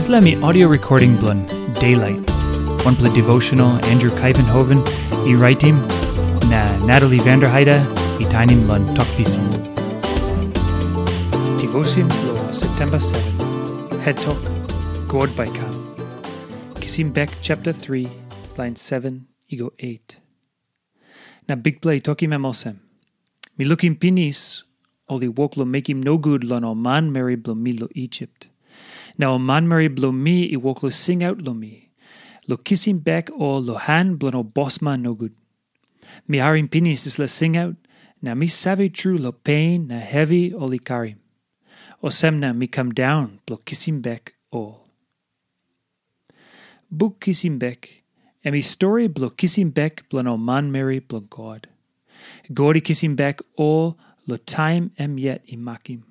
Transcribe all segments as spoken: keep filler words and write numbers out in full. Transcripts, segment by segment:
Dispela mi audio recording bilong Daylight, wanpela devotional Andrew Kaivenhoven i raitim, na Natalie Vanderheide i tainim long Tok Pisin. Devotion bilong September seven, Het Tok, God Bai Kam. Kisim Bek chapter three, line seven i go eight. Na Bikpela i tokim em olsem, "Mi lukim pinis, ol i wok long mekim nogut long ol manmeri bilong mi long Isip. Na ol manmeri bilong mi i wok long singaut long mi, long kisim bek ol long han bilong ol bosman nogut. Mi harim pinis dispela singaut, na mi save tru long pen na hevi ol i karim. Olsem na mi kam daun bilong kisim bek ol." Buk Kisim Bek, em i stori bilong kisim bek bilong ol manmeri bilong God. God i kisim bek ol long taim em yet i makim.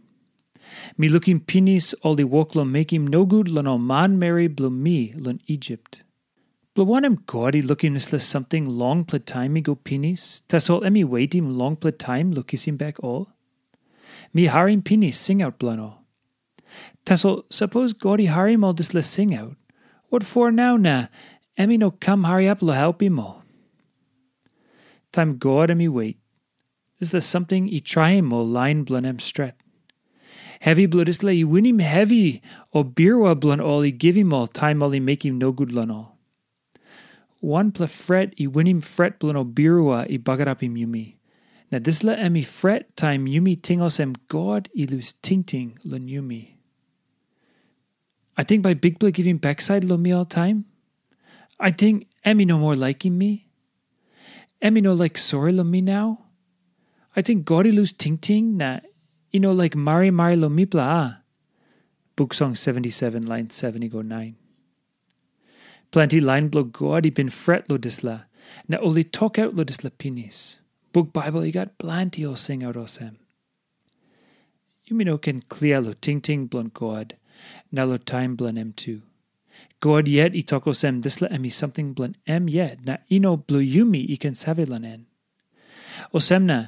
Mi lukim pinis ol i wok long mekim nogut long ol manmeri bilong mi long Isip. Bilong wanem God i lukim dispela samting longpela taim i go pinis, tasol em i wetim longpela taim long kisim bek ol? Mi harim pinis singaut bilong ol. Tasol sapos God i harim ol dispela singaut, wat for nau na em i no kam hariap long helpim ol? Taim God em i wet, dispela samting i traim ol lain bilong em stret. Hevi bilong dispela i winim hevi ol birua bilong ol i givim ol taim ol i mekim nogut long ol. Wanpela fret i winim fret bilong ol birua i bagarapim yumi. Na dispela em i fret taim yumi ting olsem God i lus tingting long yumi. Ating bai Bikpela givim baksait long mi oltaim? Ating em i no moa laikim mi? Em i no laik sori long mi nau? Ating God i lus tingting na i no laik marimari long mipela, a? Buk Song seventy-seven, line seven i go nine. Planti lain bilong God i bin fret long dispela, na ol i tokaut long dispela pinis. Buk Baibel i gat planti ol singaut olsem. Yumi no ken klia long tingting bilong God, na long taim bilong em tu. God yet i tok olsem dispela em i samting bilong em yet, na i no bilong yumi i ken save long en. Olsem na,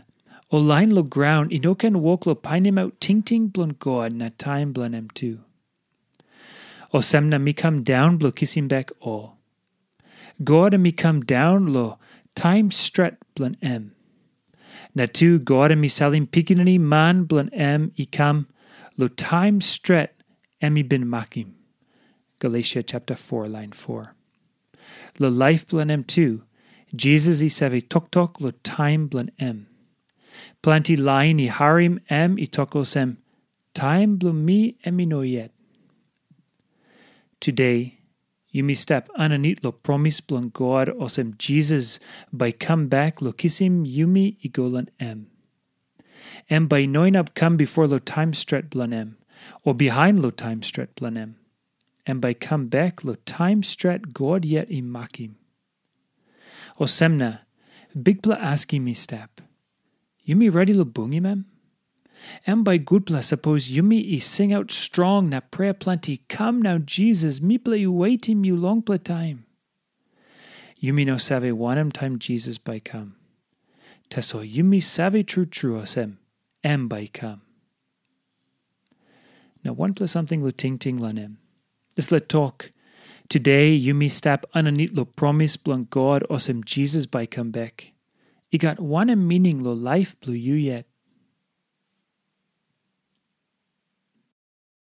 ol lain long graun i no ken wok long painimaut tingting bilong God na taim bilong em tu. Olsem na mi kam daun bilong kisim bek ol. God em i kam daun long taim stret bilong em. Na tu God em i salim Pikinini Man bilong em i kam long taim stret em i bin makim. Galesia chapter four, line four. Long laip bilong em tu, Jisas i save toktok long taim bilong em. Planti lain i harim em i tok olsem, "Taim bilong mi em i no yet." Today, yumi stap aninit long promis bilong God olsem Jisas bai kam bek long kisim yumi i go long em. Em bai i no inap kam bipo long taim stret bilong em, o bihain long taim stret bilong em. Em bai i kam bek long taim stret God yet i makim. Olsem na, Bikpela askim i stap, yumi redi long bungim em? Em bai gutpela sapos yumi i singaut strong na prea planti, "Kam nau Jisas, mipela i wetim yu longpela taim." Yumi no save wanem taim Jisas bai i kam. Tasol yumi save tru tru olsem, em bai i kam. Na wanpela samting long tingting long em. Dispela tok, "Today yumi stap aninit long promis bilong God olsem Jisas bai i kam bek," i gat wanem mining long laip bilong yu yet?